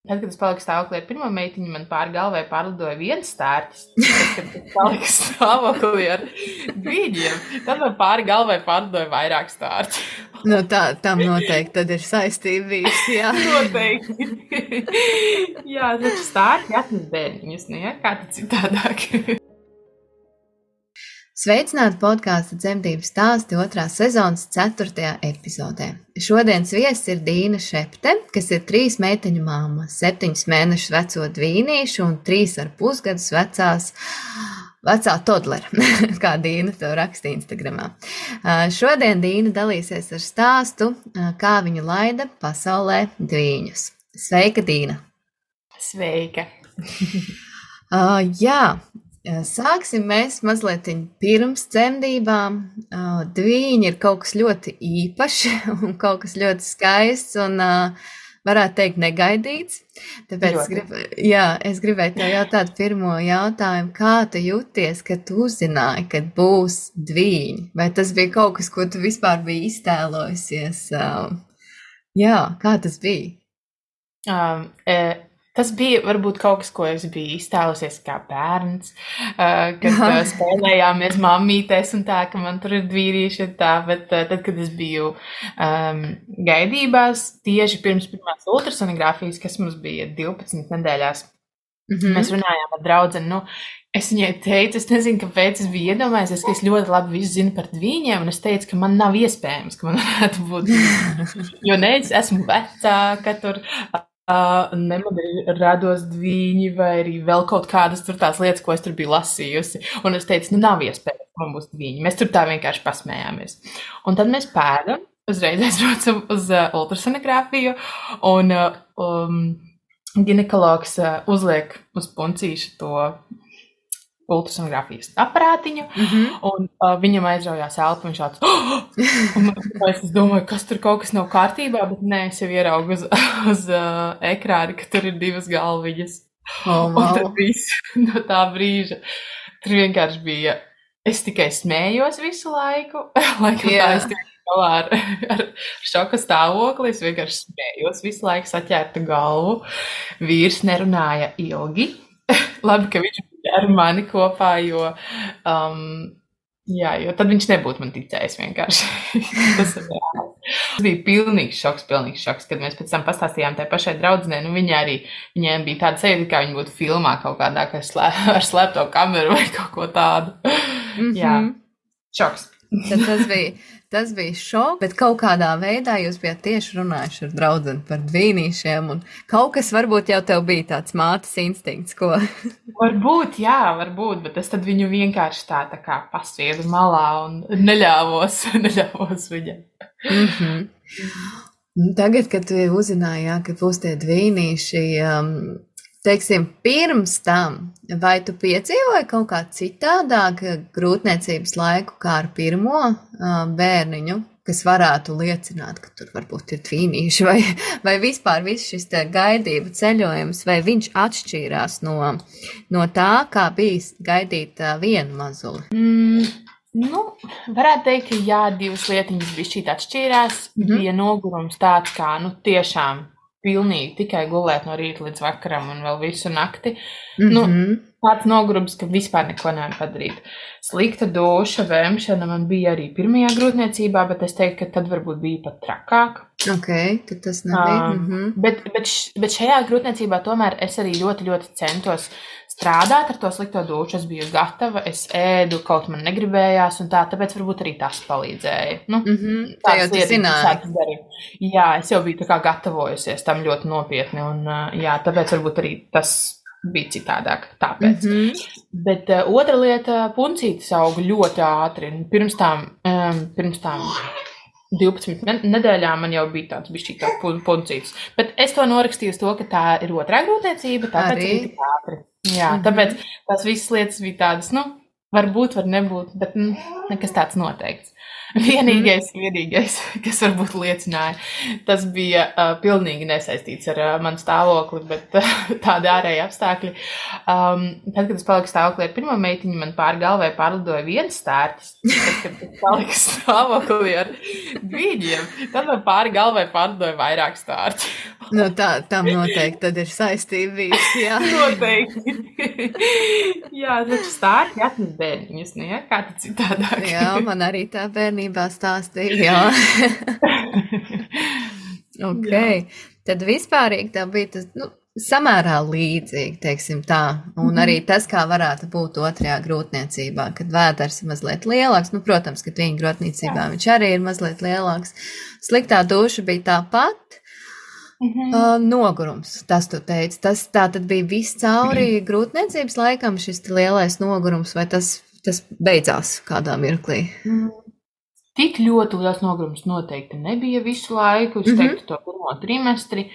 Tad, kad es paliku stāvoklī ar pirmo meitiņu, man pāri galvai pārlidoja viens stārķis. Tad, kad es paliku stāvoklī ar dvīņiem, tad man pāri galvai pārlidoja vairāk stārķi. Nu, tam noteikti tad ir saistība bijusi, jā. Noteikti. Jā, taču stārķi atnes bērniņus, nu, ja? Kā tad citādāk? Sveicināti podkāsta Dzemdību stāsti 2. sezonas 4. epizodē. Šodienas viesis ir Dīna Šepte, kas ir 3 meiteņu mamma, 7 mēnešus veco dvīnīšu un 3,5 gadus vecā todlera, kā Dīna to raksta Instagramā. Šodien Dīna dalīsies ar stāstu, kā viņa laida pasaulē dvīņus. Sveika, Dīna! Sveika! Jā. Sāksim mēs mazliet pirms dzemdībām. Dvīņi ir kaut kas ļoti īpašs un kaut kas ļoti skaists un varētu teikt negaidīts. Tāpēc es gribēju tev jautāt pirmo jautājumu, kā tu jūties, kad tu uzzināji, kad būs dvīņi? Vai tas bija kaut kas, ko tu vispār biji iztēlojusies? Jā, kā tas bija? Tas bija varbūt kaut kas, ko es biju iztēlusies kā bērns, kad spēlējāmies mammītēs un tā, ka man tur ir dvīrīši un tā, bet tad, kad es biju gaidībās, tieši pirms pirmās ultrasonogrāfijas, kas mums bija 12 nedēļās, mēs runājām ar draudzeni, es viņai teicu, es nezinu, kāpēc es biju iedomājies, ka es ļoti labi visu zinu par dvīņiem, un es teicu, ka man nav iespējams, ka man varētu būt, jo ne, es esmu vecāka tur, ne man ir rados dvīņi vai arī vēl kaut kādas tur tās lietas, ko es tur biju lasījusi. Un es teicu, nav iespējams, ka man būs dvīņi. Mēs tur tā vienkārši pasmējāmies. Un tad mēs pēdam, uzreiz aizbraucam uz ultrasonogrāfiju un ginekologs uzliek uz puncīšu to ultrasonogrāfijas aparātiņu, un viņam aizraujās elpa, viņš tāds, un es domāju, kas tur kaut kas nav kārtībā, bet nē, es jau ieraugu uz ekrāni, ka tur ir 2 galviņas. Un tad viss no tā brīža, tur vienkārši bija, es tikai smējos visu laiku, laikam tā es tikai galā ar šoka stāvokli, es vienkārši smējos visu laiku saķērtu galvu, vīrs nerunāja ilgi, labi, ka viņš ar mani kopā, jo tad viņš nebūtu man ticējis vienkārši. Tas bija pilnīgs šoks, kad mēs pēc tam pastāstījām tai pašai draudzenei, viņiem bija tāda sajūta, kā viņi būtu filmā kaut kādā, ar slēpto kameru vai kaut ko tādu. Jā, šoks. Tad tas bija šoks, bet kaut kādā veidā jūs bijāt tieši runājuši ar draudzeni par dvīnīšiem, un kaut kas varbūt jau tev bija tāds mātes instinkts, ko? Varbūt, bet es tad viņu vienkārši tā kā pasviedu malā un neļāvos viņam. Tagad, kad tu uzzināji, ka būs tie dvīnīši, teiksim, pirms tam, vai tu piedzīvoji kaut kā citādāk grūtniecības laiku kā ar pirmo bērniņu, kas varētu liecināt, ka tur varbūt ir dvīnīši, vai vispār viss šis gaidību ceļojums, vai viņš atšķīrās no tā, kā bijis gaidīt vienu mazuli? Varētu teikt, ka jā, 2 lietiņas bišķīt atšķīrās, bija nogurums tāds kā, tiešām pilnīgi tikai gulēt no rīta līdz vakaram un vēl visu nakti. Tāds nogurums, ka vispār neko nevar padarīt. Slikta duša, vēmšana man bija arī pirmajā grūtniecībā, bet es teiktu, ka tad varbūt bija pat trakāk. Ok, tad tas nebija. Bet šajā grūtniecībā tomēr es arī ļoti, ļoti centos strādāt ar to slikto dušu. Es biju gatava, es ēdu, kaut man negribējās un tā, tāpēc varbūt arī tas palīdzēja. Tā jau tu zināji. Jā, es jau biju tā kā gatavojusies tam ļoti nopietni un tāpēc varbūt arī tas bija citādāk, tāpēc. Bet otra lieta, puncītes auga ļoti ātri. Pirms tām 12 nedēļām man jau bija tāds bišķīt tā puncītes. Bet es to norakstīju uz to, ka tā ir otrā grūtniecība, tāpēc arī tik ātri. Jā, tāpēc tās visas lietas bija tādas, varbūt, var nebūt, bet nekas tāds noteikts. Vienīgais, kas varbūt liecināja, tas bija pilnīgi nesaistīts ar manu stāvokli, bet tādi ārēji apstākļi. Tad, kad es paliku stāvoklī ar pirmo meitiņu, man pāri galvai pārlidoja viens stārķis. Tad, kad es paliku stāvoklī ar dvīņiem, tad man pāri galvai pārlidoja vairāk stārķi. Nu, tam noteikti tad ir saistība bijusi, jā. Noteikti. Jā, taču stārķi atnes bērniņus, ne? Kā tad citādāk? Jā, man arī tā bērnībā stāstīja, jā. Ok, tad vispārīgi tā bija tas, samērā līdzīgi, teiksim tā, un arī tas, kā varētu būt otrajā grūtniecībā, kad vēders ir mazliet lielāks, protams, ka viņa grūtniecībā viņš arī ir mazliet lielāks. Sliktā duša bija tāpat. Nogurums, tas tu teici, tas tā tad bija viss cauri grūtniecības laikam šis lielais nogurums, vai tas beidzās kādā mirklī? Tik ļoti liels nogurums noteikti nebija visu laiku, es teiktu to pirmo trimestri,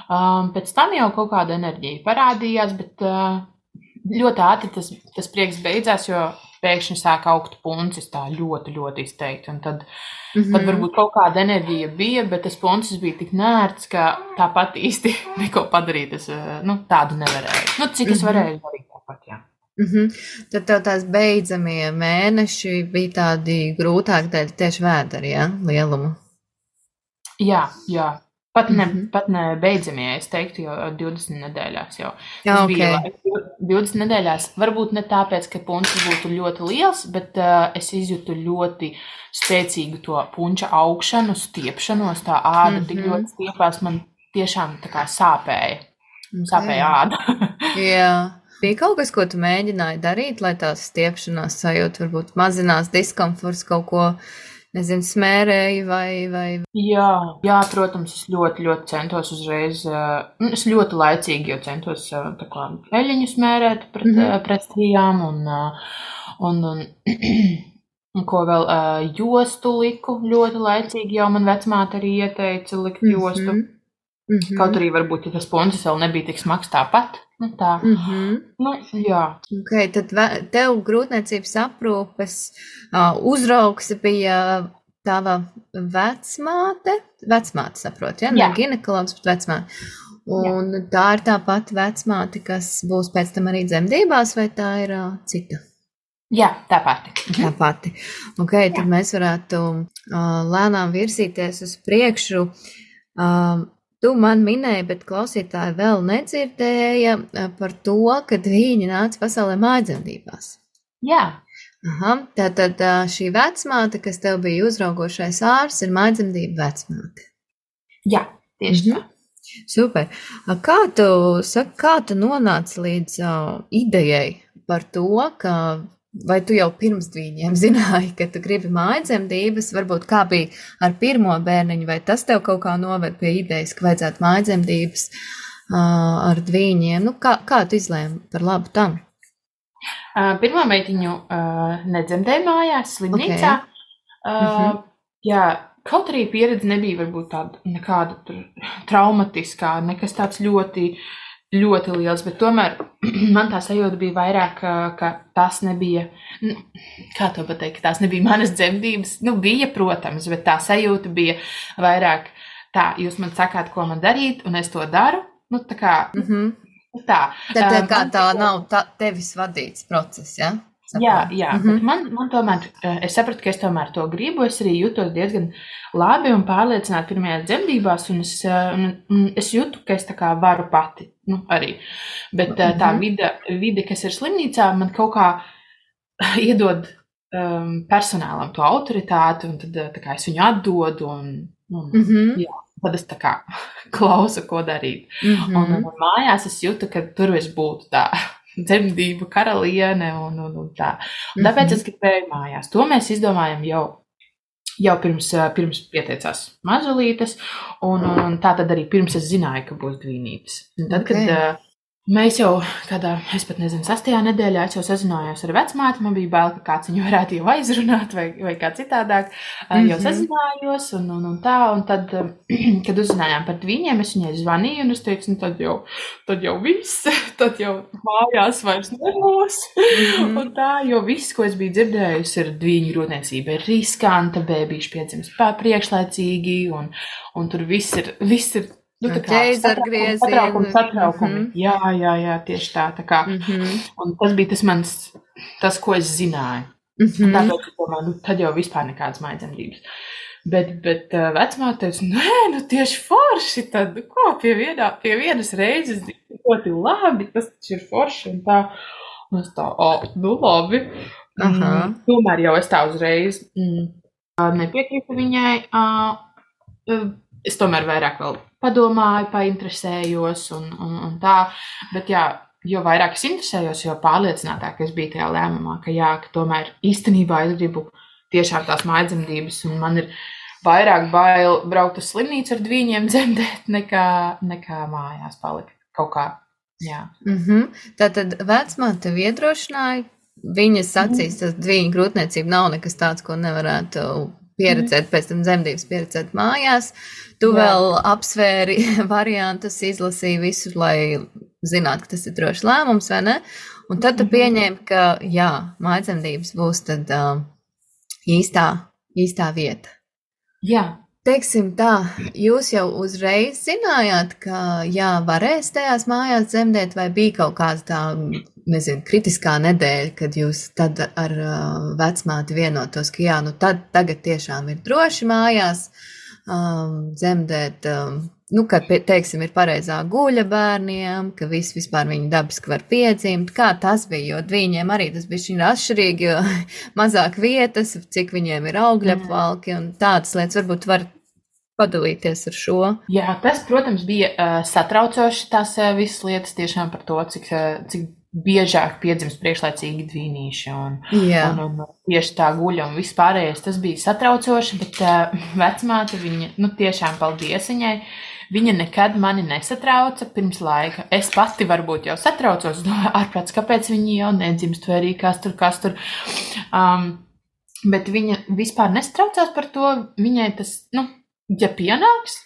pēc tam jau kaut kāda enerģija parādījās, bet ļoti ātri tas prieks beidzās, jo pēkšņi sāk augt puncis tā ļoti, ļoti izteikti, un tad varbūt kaut kāda enerģija bija, bet tas puncis bija tik nērts, ka tāpat īsti neko padarīt, es tādu nevarēju. Cik es varēju darīt tāpat, jā. Tad tev tās beidzamie mēneši bija tādi grūtāki dēļ tieši vēderi, jā, lielumu? Jā. Pat ne beidzamie, es teiktu, jau 20 nedēļās jau. Jā, ok. Bija 20 nedēļās, varbūt ne tāpēc, ka punčs būtu ļoti liels, bet es izjūtu ļoti spēcīgu to punča augšanu, stiepšanos, tā āda tik ļoti stiepās, man tiešām tā kā sāpēja. Sāpēja āda. Jā. Bija kaut kas, ko tu mēģināji darīt, lai tās stiepšanās sajūta varbūt mazinās diskomforts, kaut ko, nezinu, smērēji vai... Jā, protams, es ļoti, ļoti centos uzreiz, es ļoti laicīgi jau centos tā kā eļiņu smērēt pret strijām un ko vēl, jostu liku ļoti laicīgi, jau man vecmāte arī ieteica likt jostu. Kaut arī varbūt, ja tas puncis vēl nebija tik smags tāpat. Tā. Jā. Ok, tad tev grūtniecības aprūpes uzraugs bija tava vecmāte, saprot, ja? Ne ginekologs, bet vecmāte. Un tā ir tā pati vecmāte, kas būs pēc tam arī dzemdībās, vai tā ir cita? Jā, tā pati. Tā pati. Ok, tad mēs varētu lēnām virzīties uz priekšu. Tu man minēji, bet klausītāji vēl nedzirdēja par to, kad viņi nāca pasaulē mājdzemdībās. Jā. Tātad šī vecmāte, kas tev bija uzraugošais ārsts, ir mājdzemdība vecmāte. Jā, tieši tā. Super. Kā tu nonāci līdz idejai par to, ka vai tu jau pirms dvīņiem zināji, ka tu gribi mājdzemdības, varbūt kā bija ar pirmo bērniņu, vai tas tev kaut kā noved pie idejas, ka vajadzētu mājdzemdības ar dvīņiem? Kā tu izlēmi par labu tam? Pirmo meitiņu nedzemdēju mājās, slimnīcā. Jā, kaut arī pieredze nebija varbūt tāda nekāda traumatiskā, nekas tāds ļoti liels, bet tomēr man tā sajūta bija vairāk, ka tas nebija, kā to pateikt, ka tās nebija manas dzemdības, bija, protams, bet tā sajūta bija vairāk tā, jūs man sakāt, ko man darīt, un es to daru, tā kā, tā. Tad kā tā nav tevis vadīts process, ja? Jā, bet man tomēr, es sapratu, ka es tomēr to gribu, es arī jūtos diezgan labi un pārliecināti pirmajās dzemdībās, un es jūtu, ka es tā kā varu pati, arī. Bet tā vide, kas ir slimnīcā, man kaut kā iedod personālam to autoritāti, un tad tā kā es viņu atdodu, jā, tad es tā kā klausu, ko darīt. Un mājās es jūtu, ka tur es būtu tā dzemdību karaliene un tā. Un tāpēc es gribēju mājās. To mēs izdomājam jau pirms pieteicās mazulītes, un tā tad arī pirms es zināju, ka būs dvīnītes. Un tad, kad Mēs jau kādā, es pat nezinu, 6. nedēļā es jau sazinājos ar vecmāti, man bija bail, ka kāds viņu varētu jau aizrunāt vai kā citādāk. Jau sazinājos un tā, un tad, kad uzzinājām par viņiem, es viņai zvanīju un es teicu, nu tad jau viss, tad jau mājās vairs nebūs. Un tā, jo viss, ko es biju dzirdējusi, ir dviņu grūtniecība, ir riskanta, bēbīši piedzims priekšlaicīgi, un tur viss ir nu, satraukumi. Jā, tieši tā kā. Un tas bija tas, ko es zināju. Tāpēc, domāju, tad jau vispār nekādas mājdzemdības. Bet vecmāte teica, nē, tieši forši, tad ko, pie vienas reizes ļoti labi, tas taču ir forši un tā. Un es tā, labi. Tomēr jau es tā uzreiz nepiekrītu viņai. Es tomēr vairāk vēl padomāju, painteresējos un tā, bet jā, jo vairāk es interesējos, jo pārliecinātāk es biju tajā lēmumā, ka tomēr īstenībā es gribu tiešām tās mājdzemdības, un man ir vairāk bail braukt uz slimnīcu ar dviņiem dzemdēt, nekā mājās palikt kaut kā, jā. Tātad vecmāte tevi iedrošināja, viņas acīs tas dviņu grūtniecība nav nekas tāds, ko nevarētu pieredzēt, pēc tam dzemdības pieredzēt mājās. Tu vēl apsvēri variantus, izlasīji visu, lai zinātu, ka tas ir drošs lēmums, vai ne? Un tad tu pieņēmi, ka mājdzemdības būs tad īstā vieta. Jā. Teiksim tā, jūs jau uzreiz zinājāt, ka varēs tajās mājās dzemdēt, vai bija kaut kāds tā, nezinu, kritiskā nedēļa, kad jūs tad ar vecmāti vienotos, ka tagad tiešām ir droši mājās dzemdēt, ka, teiksim, ir pareizā guļa bērniem, ka vispār viņi dabiski var piedzimt. Kā tas bija, jo viņiem arī tas bija šķiet atšķirīgi, jo mazāk vietas, cik viņiem ir augļapvalki un tādas lietas, varbūt var padalīties ar šo. Jā, tas, protams, bija satraucoši tās visas lietas tiešām par to, cik biežāk piedzimst priekšlaicīgi dvīnīši un tieši tā guļa un viss pārējais. Tas bija satraucoši, bet vecmāte viņa, tiešām paldies viņai, viņa nekad mani nesatrauca pirms laika. Es pati varbūt jau satraucos, ārprāts, kāpēc viņi jau nedzimst, vai arī kas tur. Bet viņa vispār nesatraucās par to, viņai tas, ja pienāks,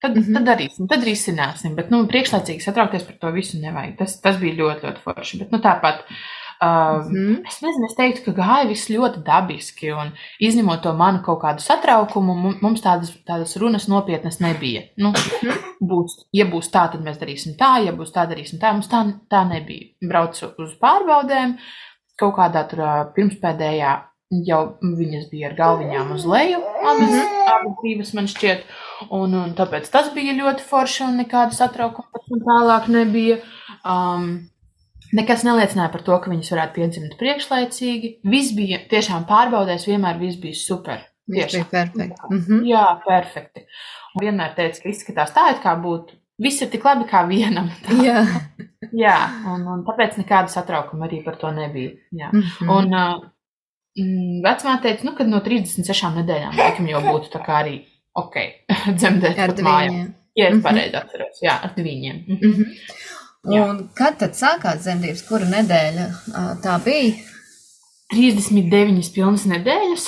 tad darīsim, tad risināsim, bet, priekšlaicīgi satraukties par to visu nevajag. Tas bija ļoti, ļoti forši, bet, tāpat, es nezinu, es teiktu, ka gāja viss ļoti dabiski, un izņemot to manu kaut kādu satraukumu, mums tādas runas nopietnas nebija. Ja būs tā, tad mēs darīsim tā, ja būs tā, darīsim tā, mums tā nebija. Braucu uz pārbaudēm, kaut kādā tur pirmspēdējā, jau viņas bija ar galviņām uz leju, abas divas man šķiet, un tāpēc tas bija ļoti forši un nekāda satraukuma tālāk nebija. Nekas neliecināja par to, ka viņas varētu piedzimt priekšlaicīgi. Viss bija tiešām pārbaudēs, vienmēr viss bija super. Viss bija perfekti. Jā, perfekti. Un vienmēr teica, ka izskatās tā, it kā būtu. Viss ir tik labi kā vienam. Jā, un tāpēc nekāda satraukuma arī par to nebija. Jā. Un vecmāte teica, kad no 36 nedēļām laikam jau būtu tā kā arī dzemdēt ar pat mājām. Ja es pareizi atceros, ar dviņiem. Un kad tad sākās dzemdības, kura nedēļa tā bija? 39 pilnas nedēļas.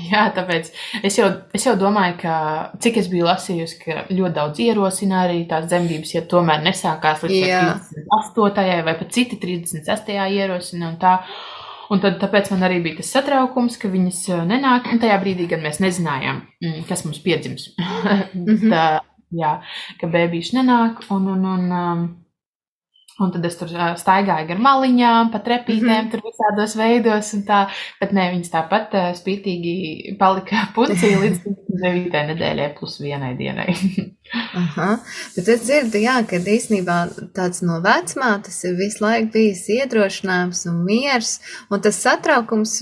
Jā, tāpēc es jau domāju, ka cik es biju lasījusi, ka ļoti daudz ierosina arī tās dzemdības, ja tomēr nesākās līdz 38. vai pat citi 36. ierosina un tā. Un tad tāpēc man arī bija tas satraukums, ka viņas nenāk, un tajā brīdī, kad mēs nezinājām, kas mums piedzims. Ka bēbīši nenāk, un tad es tur staigāju gar maliņām, pa trepītēm, tur visādos veidos, un tā, bet ne, viņas tāpat spītīgi palika pucī līdz 9. nedēļai plus 1 dienai. Bet es dzirdu, ka īstenībā tāds no vecmātes ir visu laiku bijis iedrošinājums un miers, un tas satraukums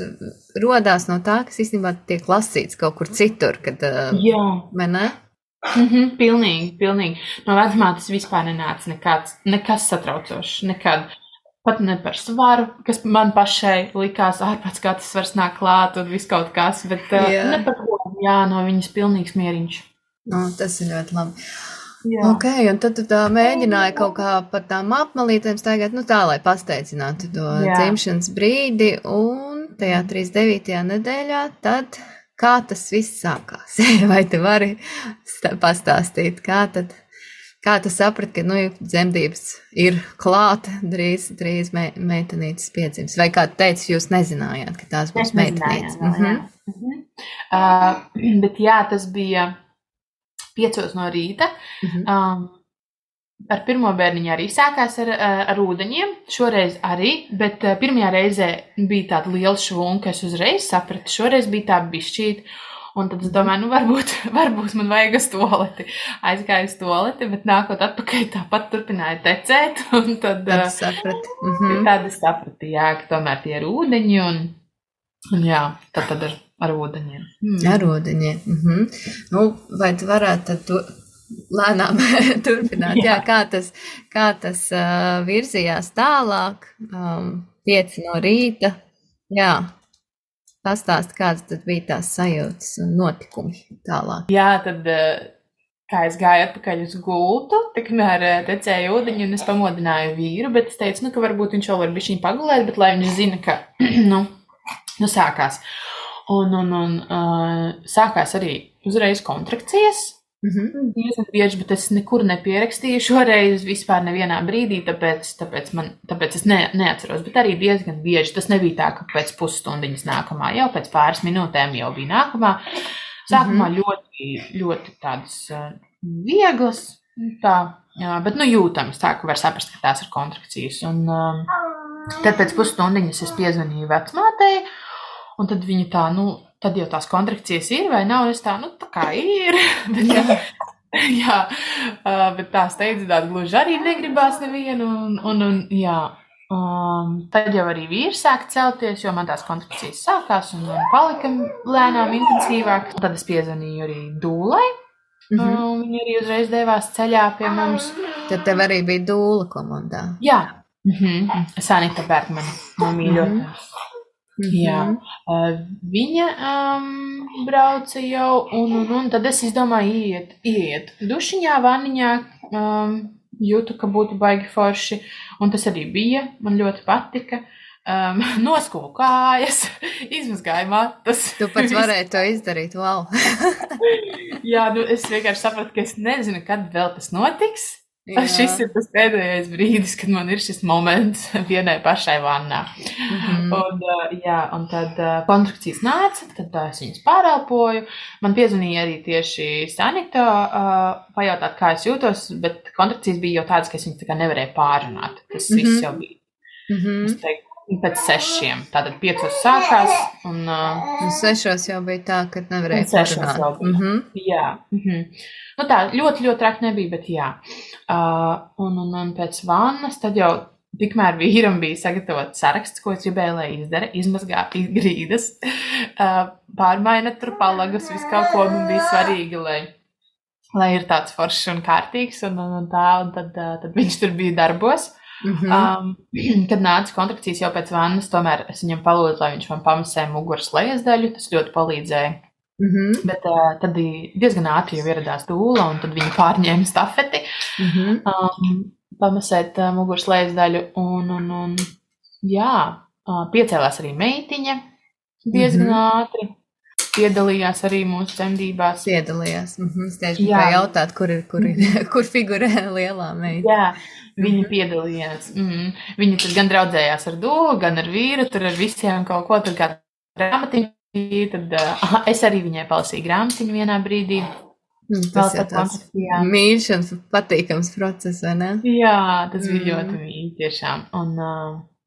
rodās no tā, kas īstenībā tiek lasīts kaut kur citur, kad, vai ne? Pilnīgi. No vecmātes vispār nenāca nekas satraucošs, nekad. Pat ne par svaru, kas man pašai likās ārpēc, kā tas svars nāk klāt un viss kaut kas, bet ne par ko, no viņas pilnīgs mieriņš. Tas ir ļoti labi. Jā. Ok, un tad tu tā mēģināji kaut kā par tām apmalītēm staigāt, nu tā, lai pasteidzinātu to dzimšanas brīdi, un tajā 39. nedēļā tad kā tas viss sākās? Vai tu vari pastāstīt, kā tu saprati, ka, dzemdības ir klāta, drīz meitenītes piedzims? Vai kā tu teici, jūs nezinājāt, ka tās būs meitenītes? Bet jā, tas bija 5 no rīta. Ar pirmo bērniņu arī sākās ar ūdeņiem, šoreiz arī, bet pirmajā reizē bija tāda liela švunka, es uzreiz sapratu, šoreiz bija tā bišķīt, un tad es domāju, varbūt man vajag uz toleti. Aizgāju uz toleti, bet nākot atpakaļ tāpat turpināja tecēt, un tad saprati. Tad es sapratu, jā, ka tomēr tie ir ūdeņi, un jā, tad ar ūdeņiem. Ar ūdeņiem. Nu, vai tu varētu tad lēnām turpināt? Jā, kā tas virzījās tālāk, 5 no rīta. Jā, pastāst, kādas tad bija tās sajūtas un notikumi tālāk. Jā, tad, kā es gāju atpakaļ uz gultu, tikmēr tecēja ūdeņi, un es pamodināju vīru, bet es teicu, ka varbūt viņš vēl var bišķiņ pagulēt, bet lai viņš zina, ka, sākās. Un sākās arī uzreiz kontrakcijas. Diezgan bieži, bet es nekur nepierakstīju šoreiz vispār nevienā brīdī, tāpēc es neatceros, bet arī diezgan bieži. Tas nebija tā, ka pēc pusstundiņas nākamā, jau pēc pāris minūtēm jau bija nākamā. Sākumā ļoti, ļoti tādas vieglas, bet jūtamas, tā, ka var saprast, ka tās ir kontrakcijas. Un tad pēc pusstundiņas es piezvanīju vecmātei, un tad viņa tā, tad jau tās kontrakcijas ir vai nav, es tā kā ir. Bet tā steidzināti gluži arī negribās nevienu, un jā. Tad jau arī vīrs sāk celties, jo man tās kontrakcijas sākās un palika lēnām intensīvāk. Tad es piezvanīju arī dūlai, viņa arī uzreiz devās ceļā pie mums. Tad tev arī bija dūla komandā? Jā, Sanita Bergmane, no mīļotās. Jā, viņa brauca jau, un tad es izdomāju iet dušiņā, vanniņā, jūtu, ka būtu baigi forši, un tas arī bija, man ļoti patika. Noskulu kājas, izmazgāju matas. Tu pats varēji to izdarīt, wow. Jā, es vienkārši sapratu, ka es nezinu, kad vēl tas notiks. Šis ir tas pēdējais brīdis, kad man ir šis moments vienai pašai vannā. Un tad kontrakcijas nāca, tad es viņas pārelpoju. Man piezvanīja arī tieši Sanita pajautāt, kā es jūtos, bet kontrakcijas bija jau tādas, ka es viņas tā kā nevarēju pārrunāt. Tas viss jau bija. Es teiktu, pēc 6, tātad 5 sākās. Un 6 jau bija tā, kad nevarēju pārrunāt. Jā. Tā ļoti, ļoti traki nebija, bet jā. Un pēc vannas tad jau tikmēr vīram bija sagatavots saraksts, ko es gribēju, lai izdara, izmazgāt grīdas, pārmaina tur palagus, visu kaut ko man bija svarīgi, lai ir tāds foršs un kārtīgs, un tad viņš tur bija darbos. Kad nāca kontrakcijas jau pēc vannas, tomēr es viņam palūdzu, lai viņš man pamasē muguras lejas daļu, tas ļoti palīdzēja. Bet tad diezgan ātri jau ieradās dūla, un tad viņi pārņēma stafeti, pamasēt muguras lejas daļu, un jā, piecēlās arī meitiņa diezgan ātri, piedalījās arī mūsu dzemdībās. Piedalījās, es tieši gribēju jautāt, kur figurē lielā meita. Jā, viņa piedalījās. Viņa tad gan draudzējās ar dūlu, gan ar vīru, tur ar visiem kaut ko, tur kā grāmatiņu. Tad es arī viņai palasīju grāmatiņu vienā brīdī. Tas ir tāds mīļš un patīkams process, vai ne? Jā, tas bija ļoti mīļi tiešām. Un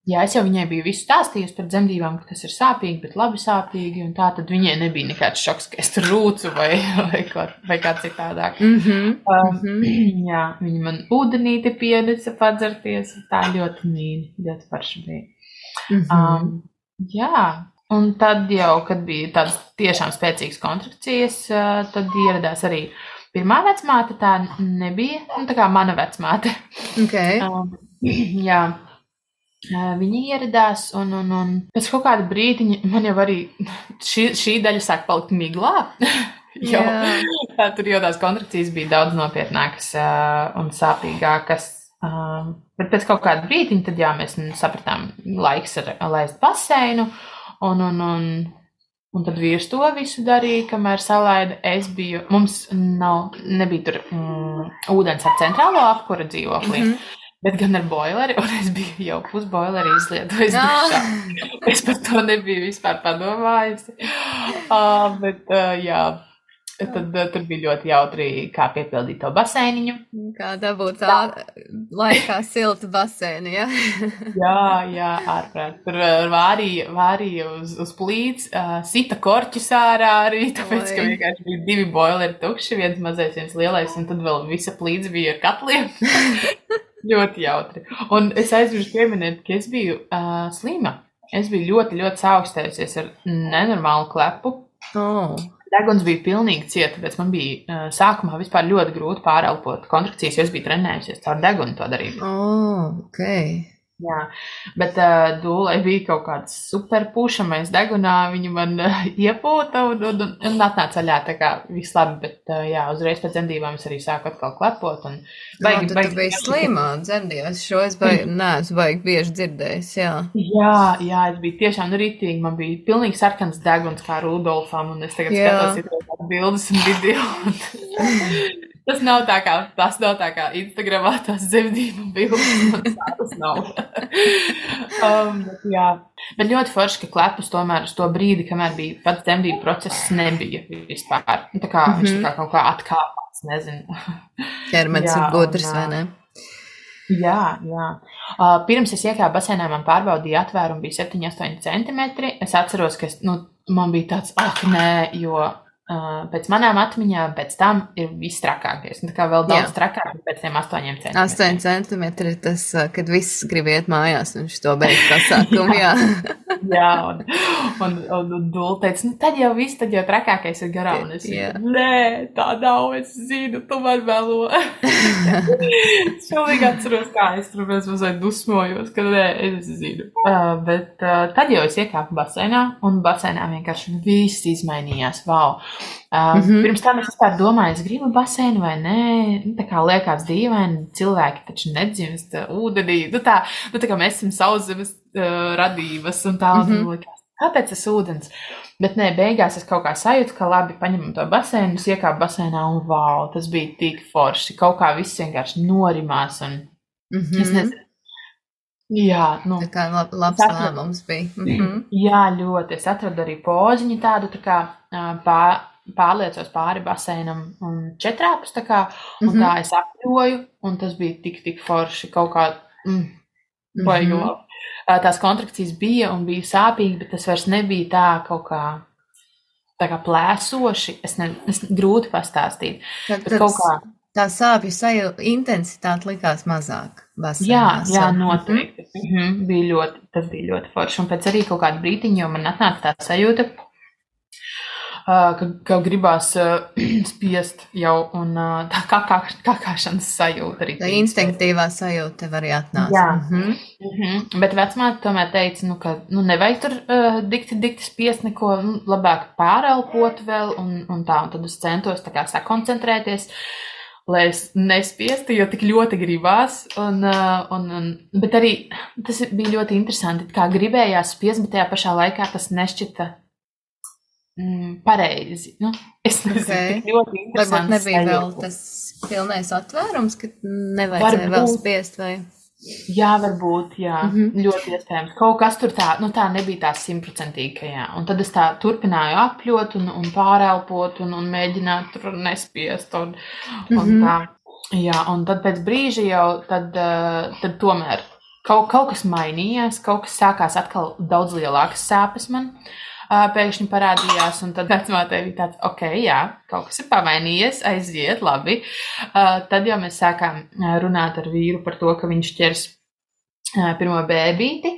jā, es jau viņai biju visu stāstījusi par dzemdībām, ka tas ir sāpīgi, bet labi sāpīgi, un tā tad viņai nebija nekāds šoks, ka es tur rūcu vai kā citādāk. Jā, viņa man ūdenīti pienesa padzerties, tā ļoti mīļi, ļoti parši bija. Jā. Un tad jau, kad bija tādas tiešām spēcīgas kontrakcijas, tad ieradās arī pirmā vecmāte, tā nebija, tā kā mana vecmāte. Okay. Jā, viņa ieradās, un pēc kaut kāda brīdiņa man jau arī šī daļa sāk palikt miglā, jo tur jau tās kontrakcijas bija daudz nopietnākas un sāpīgākas. Bet pēc kaut kāda brīdiņa, tad jā, mēs sapratām, laiks ir laist baseinu, un tad vīrs to visu darīja, kamēr salaida. Mums nebija tur ūdens ar centrālo apkura dzīvoklī. Bet gan ar boileri, un es biju jau pusboileri izlietojis dušā. Es par to nebiju vispār padomājusi. Bet jā, tad tur bija ļoti jautri, kā piepildīt to baseiniņu. Kā dabūt tā laikā siltu baseinu, ja? Jā, ārprāt. Tur vārīja uz plīts, sita korķus ārā arī, tāpēc, ka vienkārši bija 2 boileri tukši, viens mazais, viens lielais, un tad vēl visa plīts bija ar katliem. Ļoti jautri. Un es aizmirsu pieminēt, ka es biju slima. Es biju ļoti, ļoti saaugstējusies ar nenormālu klepu. Deguns bija pilnīgi cieta, tāpēc man bija sākumā vispār ļoti grūti pārelpot kontrakcijas, jo es biju trenējusies caur degunu to darīt. Okay. Jā, bet Dūlai bija kaut kāds super pušamais degunā, viņa man iepūta un atnāca aļā, tā kā viss labi, bet jā, uzreiz pēc dzemdībām es arī sāku atkal klepot. Tu biji slimā dzemdībās, šo es neesmu baigi bieži dzirdējis, jā. Jā, es biju tiešām rītīgi, man bija pilnīgi sarkans deguns kā Rudolfam, un es tagad skatos bildes un video. Tas nav tā kā Instagramā tās dzemdību bildes, tas nav. Bet ļoti forši, ka klepus tomēr uz to brīdi, kamēr bija pats dzemdību process, nebija vispār. Tā kā viņš tā kā kaut kā atkāpās, nezinu. Ķermenis ir gudrs, vai ne? Jā. Pirms es iekāpu basēnā, man pārbaudīja atvērumu, bija 7-8 centimetri. Es atceros, ka man bija tāds, nē, jo pēc manām atmiņām pēc tam ir viss trakākais. Tā kā vēl daudz trakāk pēc tiem 8 centimetriem. 8 centimetri ir tas, kad viss grib iet mājās un šito beidz pasākumu, jā. Jā, un Dula teica, tad jau trakākais ir garām. Un es nē, tā nav, es zinu, tu man vēlo. Es šaulīgi atceros, kā es tur mazliet dusmojos, ka nē, es zinu. Bet tad jau es iekāpu basēnā, un basēnā vienkārši viss izmainījās, wow. Pirms tam es vispār domāju, es gribu baseinu vai nē, tā kā liekas dīvaini, cilvēki taču nedzimst ūdenī, tā kā mēs esam sauszemes radības un tā, un liekas, kāpēc tas ūdens? Bet nē, beigās es kaut kā sajūtu, ka labi, paņemam to baseinu, es iekāpu baseinā un wow, tas bija tik forši, kaut kā viss vienkārši norimās un es nezinu. Jā, tā kā labs lēmums bija. Jā, ļoti. Es atradu arī poziņu tādu, tā kā pārliecos pāri baseinam un četrāpus, tā kā, un tā es apļoju, un tas bija tik forši kaut kā, baigi labi. Tās kontrakcijas bija un bija sāpīgi, bet tas vairs nebija tā kaut kā, tā kā plēsoši, es grūti pastāstīt. Bet kaut kā. Tā sāpju intensitāte likās mazāk basēnās. Jā, noteikti. Tas bija ļoti forši. Un pēc arī kaut kāda brītiņa, jo man atnāca tā sajūta, ka gribās spiest jau, un tā kakāšanas sajūta arī. Tā instinktīvā sajūta tev arī atnāca. Jā. Bet vecmāte tomēr teica, ka nevajag tur dikti spiest neko, labāk pārelpot vēl, un tā, un tad es centos tā kā sakoncentrēties, lai es nespiestu, jo tik ļoti gribās, bet arī tas bija ļoti interesanti, kā gribējās spiest, bet tajā pašā laikā tas nešķita pareizi. Es nezinu, tik ļoti interesanti. Varbūt nebija vēl tas pilnais atvērums, ka nevajadzēja vēl spiest, vai? Jā, varbūt, jā, ļoti iespējams. Kaut kas tur tā nebija tā 100%, ka jā. Un tad es tā turpināju apļot un pārelpot un mēģināt tur nespiest un tā. Jā, un tad pēc brīža jau tad tomēr kaut kas mainījās, kaut kas sākās atkal daudz lielākas sāpes man. Pēkšņi parādījās, un tad vecmātei bija tāds, jā, kaut kas ir pamainījies, aiziet, labi. Tad jau mēs sākām runāt ar vīru par to, ka viņš ķers pirmo bēbīti,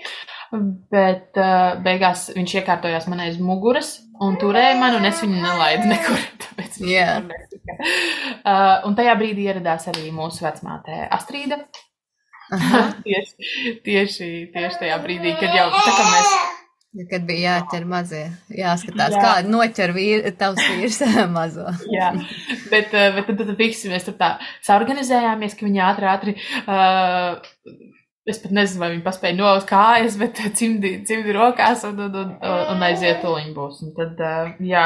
bet beigās viņš iekārtojās man aiz muguras un turēja man, un es viņu nelaidu nekur. Tāpēc un tajā brīdī ieradās arī mūsu vecmāte Astrīda. Tieši tajā brīdī, kad jau tā kā mēs Kad bija jāķer mazie, jāskatās, Jā. kādi noķer tavs vīrs mazo. Jā, bet tad visi mēs tur tā saorganizējāmies, ka viņi ātri, es pat nezinu, vai viņi paspēja nolaust kājas, bet cimdi rokās un aiziet tuliņ būs. Un tad, jā,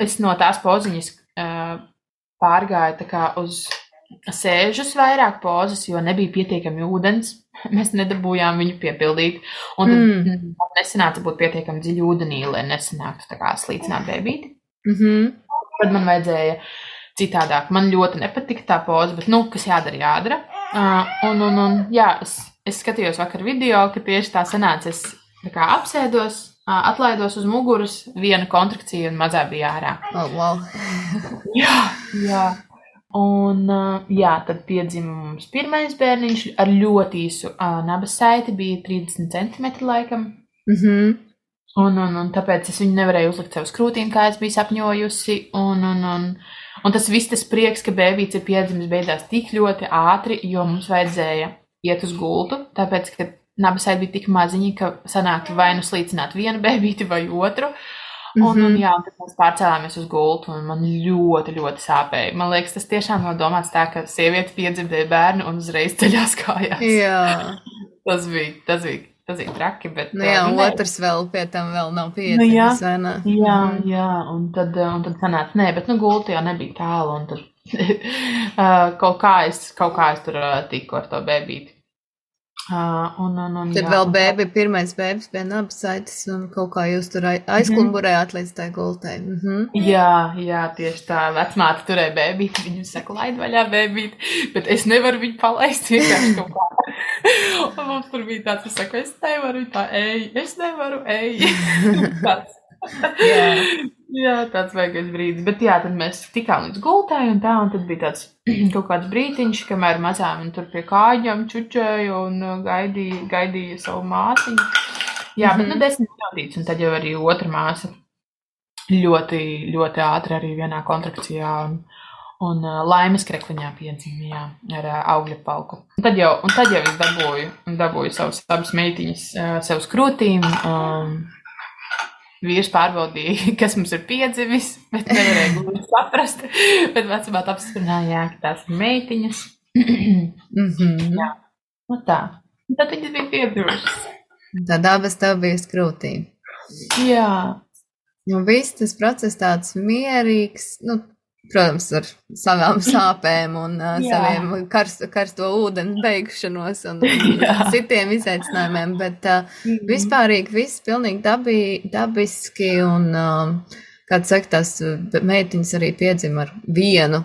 es no tās poziņas pārgāju tā kā uz sēžus vairāk pozas, jo nebija pietiekami ūdens. Mēs nedabūjām viņu piepildīt. Un tad nesanāca būt pietiekami dziļi ūdenī, lai nesanāktu tā kā slīcināt bēbīti. Tad man vajadzēja citādāk. Man ļoti nepatika tā poza, bet, kas jādara. Jā, es skatījos vakar video, ka tieši tā sanāca. Es tā kā apsēdos, atlaidos uz muguras, viena kontrakcija un mazā bija ārā. Oh, wow. Jā. Un, tad piedzima mums pirmais bērniņš ar ļoti īsu nabas saiti, bija 30 centimetri laikam. Un tāpēc es viņu nevarēju uzlikt sev uz krūtīm, kā es biju sapņojusi. Un tas viss tas prieks, ka bēbīts ir piedzimis, beidzās tik ļoti ātri, jo mums vajadzēja iet uz gultu, tāpēc, ka nabas saiti bija tik maziņi, ka sanāktu vai nu slīcināt vienu bēbīti vai otru. Un tad mēs pārcēlāmies uz gultu, un man ļoti, ļoti sāpēja. Man liekas, tas tiešām nav domāts tā, ka sieviete piedzimdēja bērnu un uzreiz ceļās kājās. Jā. Tas bija traki, bet... Otrs vēl pie tam vēl nav piedzimis, vai ne? Jā, un tad sanāca, bet gultu jau nebija tālu, un tad kaut kā es tur tiku ar to bēbīti. Tad vēl pirmais bēbis bija nabas saites, un kaut kā jūs tur aizklumburējāt līdz tai gultai. Jā, tieši tā. Vecmāte turēja bēbīti, viņu saka, laid vaļā bēbīti, bet es nevaru viņu palaist vienkārši kaut kā. Un mums tur bija tāds, es saku, es nevaru, tā es nevaru, tāds. Jā, tāds vajagais brīdis. Bet jā, tad mēs tikām līdz gultai un tad bija tāds kaut kāds brītiņš, kamēr mazām un tur pie kājām čučēja un gaidīja savu māsiņu. Jā, bet 10 minūtītes, un tad jau arī otra māsa ļoti, ļoti ātri arī vienā kontrakcijā un laimes krekliņā piedzimīja ar augļa palku. Un tad jau es dabūju savus abas meitiņas sev uz krūtīm. Vīrs pārbaudīja, kas mums ir piedzimis, bet nevarēja gluži saprast. Bet vecumāt apstiprināja, ka tās ir meitiņas. Jā, tā. Un tad viņas bija piedzimušas. Tad abas tev bija uz krūtīm. Jā. Un viss tas process tāds mierīgs, protams, ar savām sāpēm un saviem karsto ūdeni beigšanos un citiem izaicinājumiem, bet vispārīgi viss pilnīgi dabiski un, kā tu saki, tās meitiņas arī piedzima ar vienu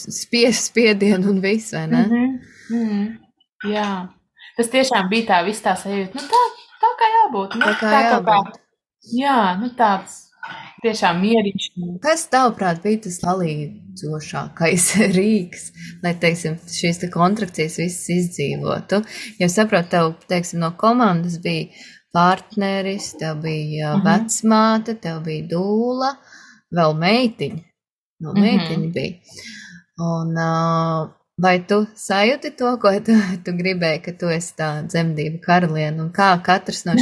spiedienu un visu, vai ne? Jā. Tas tiešām bija tā viss tā sajūta, tā kā jābūt. Tā kā jābūt. Jā, tāds. Tiešām mieriņš. Kas tavuprāt bija tas palīdzošākais rīks, lai, teiksim, šīs te kontrakcijas visas izdzīvotu? Ja saprotu, tev, teiksim, no komandas bija partneris, tev bija vecmāte, tev bija dūla, vēl meitiņa. Meitiņa bija. Un vai tu sajūti to, ko tu gribēji, ka tu esi tā dzemdību karaliene, un kā katrs no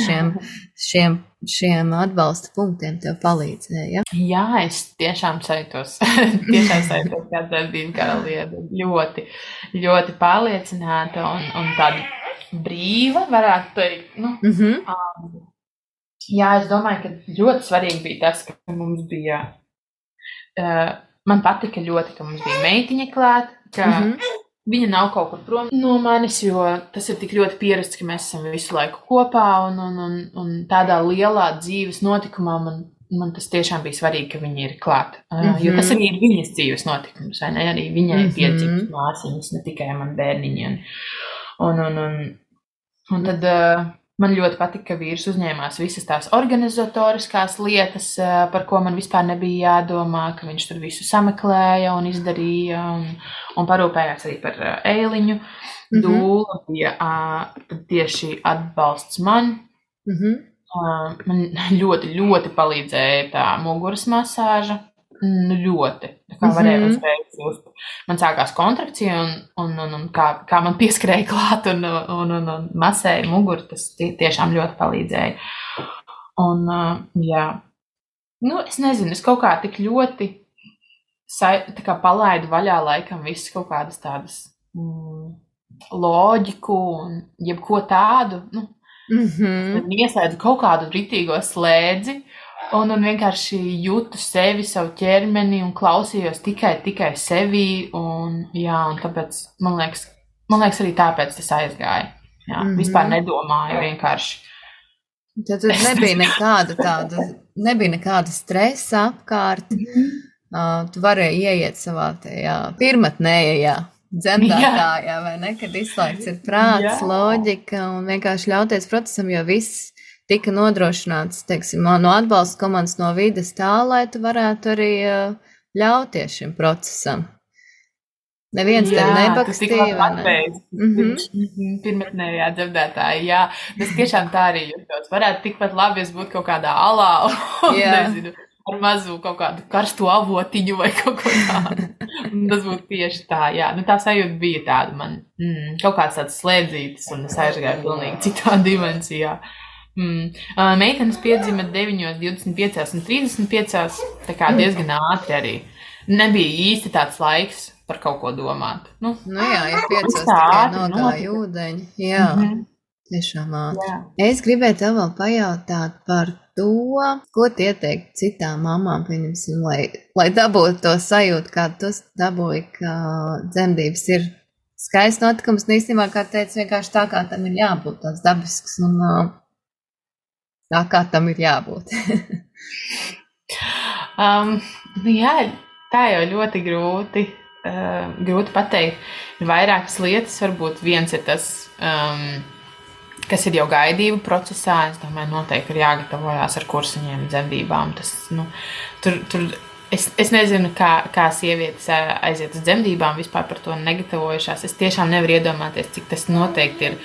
šiem atbalsta punktiem tev palīdzēja? Jā, es tiešām sajūtos kā dzemdību karaliene. Ļoti, ļoti pārliecināta un tāda brīva, varētu teikt. Jā, es domāju, ka ļoti svarīgi bija tas, ka mums bija, man patika ļoti, ka mums bija meitiņa klāt, ka viņa nav kaut kur prom no manis, jo tas ir tik ļoti pierasts, ka mēs esam visu laiku kopā un tādā lielā dzīves notikumā man tas tiešām bija svarīgi, ka viņa ir klāt. Jo tas arī ir viņas dzīves notikums, vai ne? Arī viņai piedzimst māsiņas, ne tikai man bērniņi. Un tad man ļoti patika, ka vīrs uzņēmās visas tās organizatoriskās lietas, par ko man vispār nebija jādomā, ka viņš tur visu sameklēja un izdarīja un parūpējās arī par Eiliņu. Dūla bija tieši atbalsts man. Man ļoti, ļoti palīdzēja tā muguras masāža. ļoti. Tā kā varēja uzreiz just. Man sākās kontrakcija un kā man pieskrēja klāt un masēja muguru, tas tiešām ļoti palīdzēja. Un, jā. Nu, es nezinu, es kaut kā tik ļoti tā kā palaidu vaļā laikam visas kaut kādas tādas loģiku un jebko tādu, ieslēdzu kaut kādu ritīgo slēdzi un vienkārši jūtu sevi, savu ķermeni un klausījos tikai sevī un tāpēc, man liekas arī tāpēc tas aizgāja. Jā, vispār nedomāju vienkārši. Tad nebija nekāda stresa apkārt. Tu varēji ieiet savā tajā pirmatnējā dzemdētājā, vai ne, kad izslēgts ir prāts, loģika un vienkārši ļauties procesam, jo viss tika nodrošināts, teiksim, no atbalsta komandas, no vides tā, lai tu varētu arī ļauties šim procesam. Neviens tev nebakstīja, vai ne? Pirmatnējā dzemdētāja, jā. Tas tiešām tā arī jūtos. Varētu tikpat labi, es būtu kaut kādā alā, nezinu, ar mazu kaut kādu karstu avotiņu vai kaut ko tādu. Tas būtu tieši tā, jā. Nu, tā sajūta bija tāda man, kaut kāds tāds slēdzītis, un es aizgāju pilnīgi citā dimensijā. Meitenes piedzima 9, 25 un 35, tā kā diezgan ātri arī. Nebija īsti tāds laiks par kaut ko domāt. Nu jā, ja 5 tikai nogāja ūdeņi. Jā, tiešām ātri. Es gribēju tev vēl pajautāt par to, ko tu ieteikt citām mamām, pieņemsim, lai dabūtu to sajūtu, kā tu dabūji, ka dzemdības ir skaists notikums, un īstenībā, kā teicu, vienkārši tā, kā tam ir jābūt, tāds dabisks, un tā, kā tam ir jābūt. Jā, tā jau ļoti grūti pateikt. Ir vairākas lietas, varbūt viens ir tas, kas ir jau gaidību procesā. Es domāju, noteikti ir jāgatavojās ar kursiņiem, dzemdībām. Tas, es nezinu, kā sievietes aiziet uz dzemdībām, vispār par to negatavojušās. Es tiešām nevaru iedomāties, cik tas noteikti ir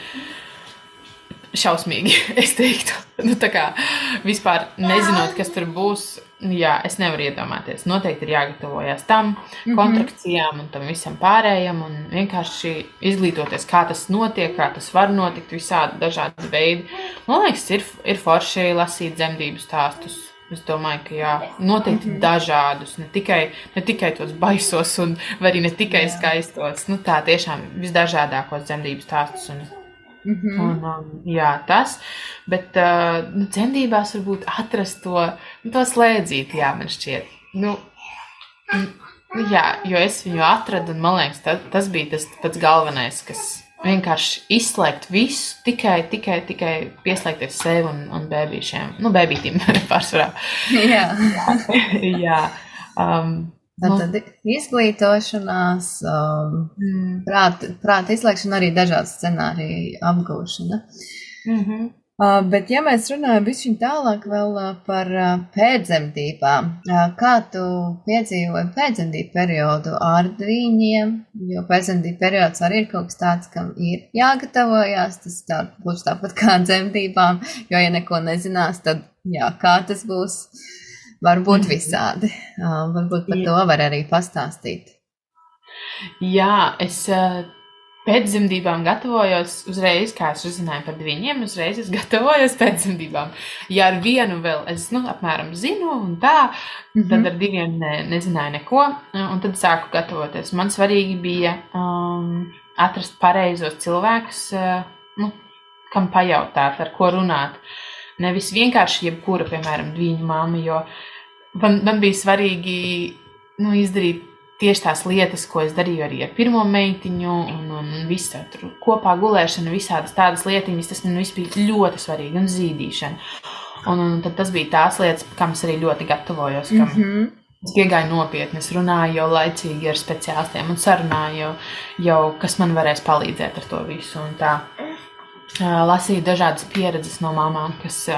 šausmīgi, es teiktu. Tā kā vispār nezinot, kas tur būs, jā, es nevaru iedomāties. Noteikti ir jāgatavojas tam, kontrakcijām un tam visam pārējam un vienkārši izglītoties, kā tas notiek, kā tas var notikt, visādi dažādi veidi. Man liekas, ir forši lasīt dzemdību stāstus. Es domāju, ka jā, noteikti dažādus, ne tikai tos baisos vai arī ne tikai skaistos. Tā tiešām visdažādākos dzemdību stāstus jā, tas, bet dzemdībās varbūt atrast to slēdzīti, jā, man šķiet. Jā, jo es viņu atradu, un man liekas, tas bija tas pats galvenais, kas vienkārši izslēgt visu, tikai pieslēgties sev un bēbīšiem. Bēbītim pārsvarā. Jā. Jā. Tad izglītošanās, prāta izslēgšana, arī dažādu scenāriju apgūšana. Bet, ja mēs runājam bišķiņ tālāk vēl par pēcdzemdībām, kā tu piedzīvoji pēcdzemdību periodu ar dvīņiem, jo pēcdzemdību periods arī ir kaut kas tāds, kam ir jāgatavojās, tas būs tāpat kā dzemdībām, jo, ja neko nezinās, tad, jā, kā tas būs? Varbūt visādi. Varbūt par to var arī pastāstīt. Jā, es pēc dzemdībām gatavojos uzreiz, kā es uzzināju par dviņiem, uzreiz es gatavojos pēc dzemdībām. Ja ar vienu vēl es, apmēram zinu un tā, tad ar diviem nezināju neko, un tad sāku gatavoties. Man svarīgi bija atrast pareizos cilvēkus, kam pajautāt, ar ko runāt. Nevis vienkārši jebkura, piemēram, dviņu mamma, jo man bija svarīgi izdarīt tieši tās lietas, ko es darīju arī ar pirmo meitiņu un visu tur kopā gulēšanu, visādas tādas lietiņas, tas man viss bija ļoti svarīgi un zīdīšana. Un tad tas bija tās lietas, kam es arī ļoti gatavojos, kam es piegāju nopietni, es runāju jau laicīgi ar speciālistiem un sarunāju jau, kas man varēs palīdzēt ar to visu un tā. Lasīju dažādas pieredzes no mamām, kas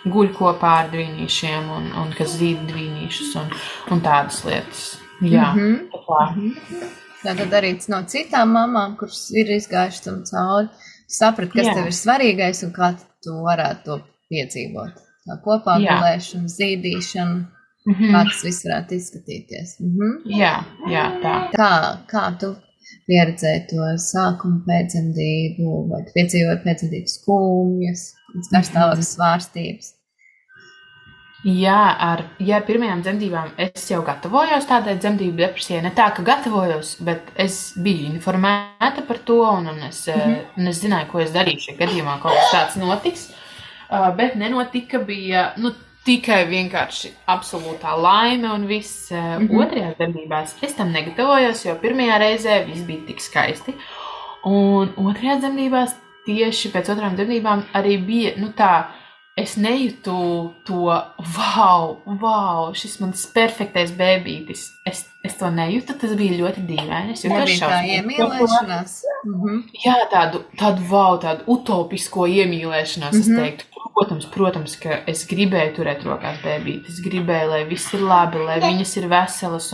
guļ kopā ar dvīnīšiem un kas zīd dvīnīšus un tādas lietas. Jā, Tad arī no citām mamām, kuras ir izgājušas tam cauri, saprat, kas tev ir svarīgais un kā tu varētu to piedzīvot. Tā kopā gulēšana, zīdīšana. kā tas viss varētu izskatīties. Jā, tā. Kā tu pieredzēji to sākumu pēcdzemdību, vai tu piedzīvoji pēcdzemdības skumjas, garstāvokļa svārstības? Jā, ar pirmajām dzemdībām es jau gatavojos tādai dzemdību depresijai. Ne tā, ka gatavojos, bet es biju informēta par to, un es zināju, ko es darīšu, ja gadījumā kaut kas tāds notiks. Bet nenotika, bija tikai vienkārši absolūtā laime un viss. Otrajās dzemdībās es tam negatavojos, jo pirmajā reizē viss bija tik skaisti. Un otrajās dzemdībās, tieši pēc otrām dzemdībām, arī bija, tā, es nejūtu to, wow, šis mans perfektais bēbītis. Es to nejūtu, tas bija ļoti dīvaini. Es nebija tā iemīlēšanās. Jā, tādu utopisko iemīlēšanās, es teiktu. Protams, ka es gribēju turēt rokās bēbīti. Es gribēju, lai viss ir labi, lai viņas ir veselas,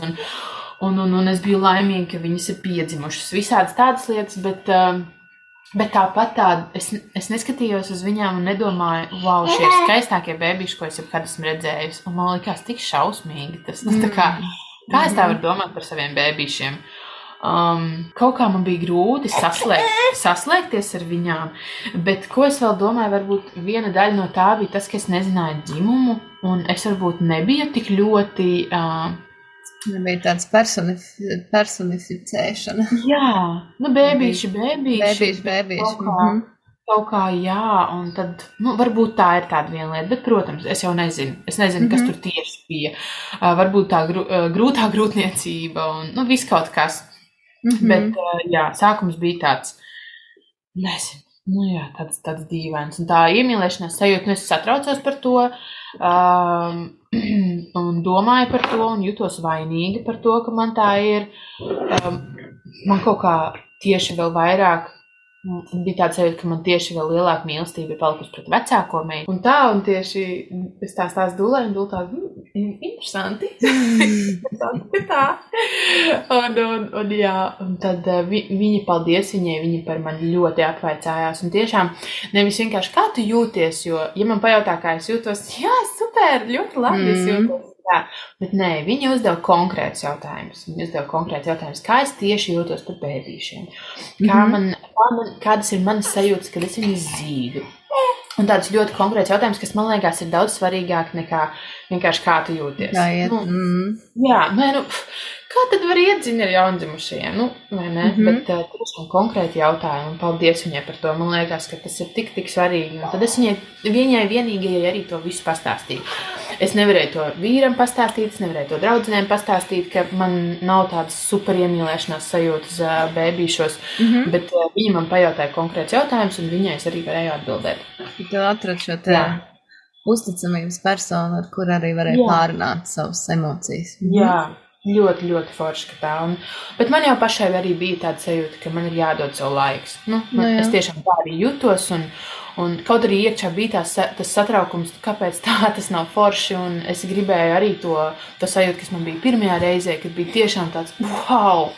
un es biju laimīga, ka viņas ir piedzimušas. Visādas tādas lietas, bet tāpat es neskatījos uz viņām un nedomāju, wow, šie ir skaistākie bēbīši, ko es jebkad esmu redzējusi. Un man likās tik šausmīgi. Tas tā kā es tā varu domāt par saviem bēbīšiem? Kaut kā man bija grūti saslēgties ar viņām, bet ko es vēl domāju, varbūt viena daļa no tā bija tas, ka es nezināju dzimumu, un es varbūt nebiju tik ļoti... Nebija tāds personificēšana. Jā, bēbīši. Kaut kā, jā, un tad, varbūt tā ir tāda viena lieta, bet, protams, es jau nezinu. Es nezinu, kas tur tieši bija. Varbūt tā grūtā grūtniecība un viss kaut kas. Bet, jā, sākums bija tāds, nezinu, tāds dīvains. Un tā iemīlēšanās sajūta, es satraucos par to un domāju par to un jutos vainīga par to, ka man tā ir. Man kaut kā tieši vēl vairāk bija tāds sajūta, ka man tieši vēl lielāka mīlestība ir palikusi pret vecāko meitu. Un tieši es tā stāstu Dulai, un Dula tā, interesanti. Tā. Un jā, un tad viņa, paldies viņai, viņa par mani ļoti apvaicājās. Un tiešām nevis vienkārši kā tu jūties, jo, ja man pajautā, kā es jūtos, jā, super, ļoti labi es jūtos. Jā, bet nē, viņi uzdeva konkrēts jautājumus. Kā es tieši jūtos par bēbīšiem. Kādas ir manas sajūtas, kad es viņus zīdu. Un tāds ļoti konkrēts jautājums, kas man liekas ir daudz svarīgāk nekā vienkārši kā tu jūties. Kā tad var iedzīt ar jaundzimušajiem? Vai ne? Bet tiešām konkrēti jautājumi. Un paldies viņai par to. Man liekas, ka tas ir tik svarīgi. Un tad es viņai vienīgajai arī to visu pastāstīju. Es nevarēju to vīram pastāstīt, es nevarēju to draudzenēm pastāstīt, ka man nav tādas super iemīlēšanās sajūtas bēbīšos, bet viņa man pajautāja konkrēts jautājums, un viņai es arī varēju atbildēt. Tu atradi šo uzticamības personu, ar kur arī varēja pārunāt savas emocijas. Jā. Ļoti, ļoti forši, ka tā. Bet man jau pašai arī bija tāda sajūta, ka man ir jādod savu laiks. Es tiešām tā arī jutos, un kaut arī iekšā bija tas satraukums, kāpēc tā tas nav forši, un es gribēju arī to sajūtu, kas man bija pirmajā reizē, kad bija tiešām tāds wow,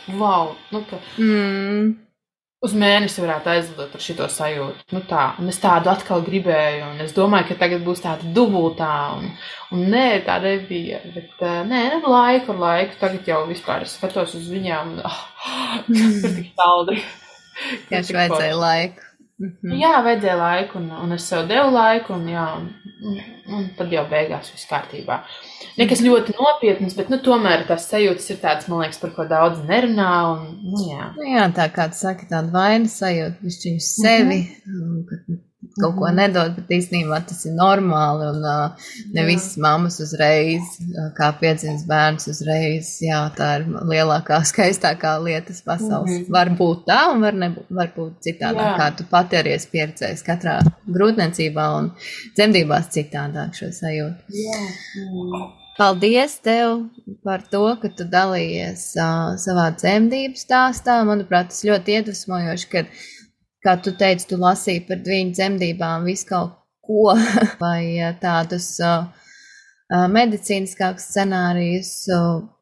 uz mēnesi varētu aizlidot ar šito sajūtu. Un es tādu atkal gribēju, un es domāju, ka tagad būs tāda dubultā, un nē, tā nebija. Bet laiku, tagad jau vispār es skatos uz viņām, un tur tik saldi. Tieši vajadzēja laiku. Jā, vajadzēja laiku, un es sev devu laiku, un tad jau beigās viss kārtībā. Nekas ļoti nopietnas, bet tomēr tās sajūtas ir tādas, man liekas, par ko daudz nerunā. Jā, tā kā tu saki, tāda vainas sajūta, višķiņu sevi, kaut ko nedod, bet īstenībā tas ir normāli, un ne visas mammas uzreiz, kā piedzimts bērns uzreiz, jā, tā ir lielākā, skaistākā lietas pasaules. Var būt tā, un var būt citādāk, kā tu pati arī esi pieredzējis katrā grūtniecībā un dzemdībās citādāk šo sajūtu. Paldies tev par to, ka tu dalījies savā dzemdību stāstā. Manuprāt, tas ļoti iedvesmojoši, kad, kā tu teici, tu lasīji par viņu dzemdībām visu kaut ko vai tādus medicīniskākus scenārijus,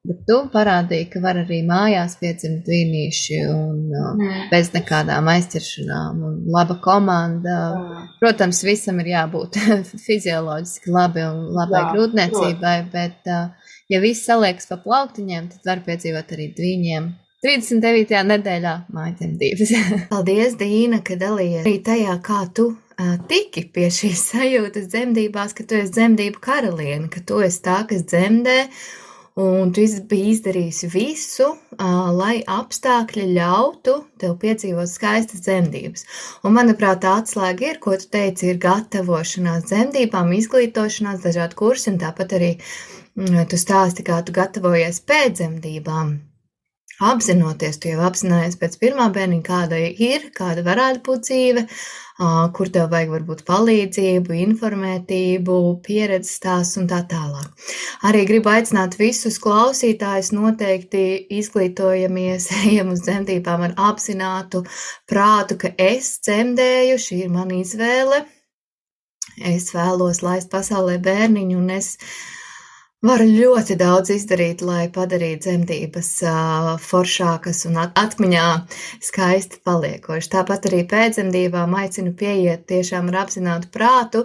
bet tu parādīji, ka var arī mājās piedzimt dvīnīši un bez nekādām aizķeršanām un laba komanda. Protams, visam ir jābūt fizioloģiski labi un labai grūtniecībai, bet Ja viss saliekas pa plauktiņiem, tad var piedzīvot arī dviņiem 39. nedēļā mājdzemdības. Paldies, Dīna, ka dalījies arī tajā, kā tu tiki pie šīs sajūtas dzemdībās, ka tu esi dzemdību karaliene, ka tu esi tā, kas dzemdē, un tu biji izdarījusi visu, lai apstākļi ļautu tev piedzīvot skaistas dzemdības. Un, manuprāt, tā atslēga ir, ko tu teici, ir gatavošanās dzemdībām, izglītošanās, dažādi kursi, un tāpat arī tu stāsti, kā tu gatavojies pēc dzemdībām. Apzinoties, tu jau apzinājies pēc pirmā bērniņa, kāda ir, kāda varētu būt dzīve, kur tev vajag varbūt palīdzību, informētību, pieredzes stāsts un tā tālāk. Arī gribu aicināt visus klausītājus noteikti izglītojamies, ejam uz dzemdībām ar apzinātu prātu, ka es dzemdēju, šī ir mana izvēle, es vēlos laist pasaulē bērniņu un es varu ļoti daudz izdarīt, lai padarītu dzemdības foršākas un atmiņā skaisti paliekoši. Tāpat arī pēc dzemdībām aicinu pieiet tiešām ar apzinātu prātu,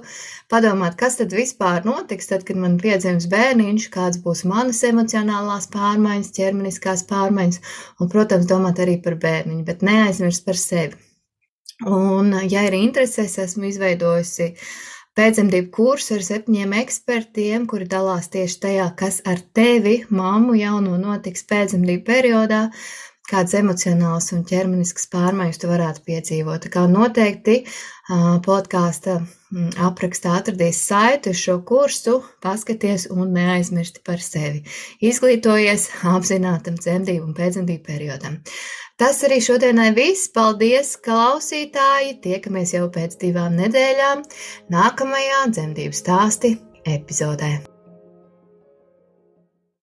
padomāt, kas tad vispār notiks, tad, kad man piedzims bērniņš, kāds būs manas emocionālās pārmaiņas, ķermeniskās pārmaiņas, un, protams, domāt arī par bērniņu, bet neaizmirst par sevi. Un, ja ir intereses, esmu izveidojusi pēcdzemdību kursu ar 7 ekspertiem, kuri dalās tieši tajā, kas ar tevi, mammu jauno, notiks pēcdzemdību periodā, kādas emocionālas un ķermeniskas pārmaiņas tu varētu piedzīvot. Tā kā noteikti podkāsta aprakstā atradīs saiti uz šo kursu, paskaties un neaizmirsti par sevi. Izglītojies apzinātam dzemdību un pēcdzemdību periodam. Tas arī šodienai viss. Paldies, klausītāji! Tiekamies jau pēc 2 nedēļām nākamajā dzemdību stāsti epizodē.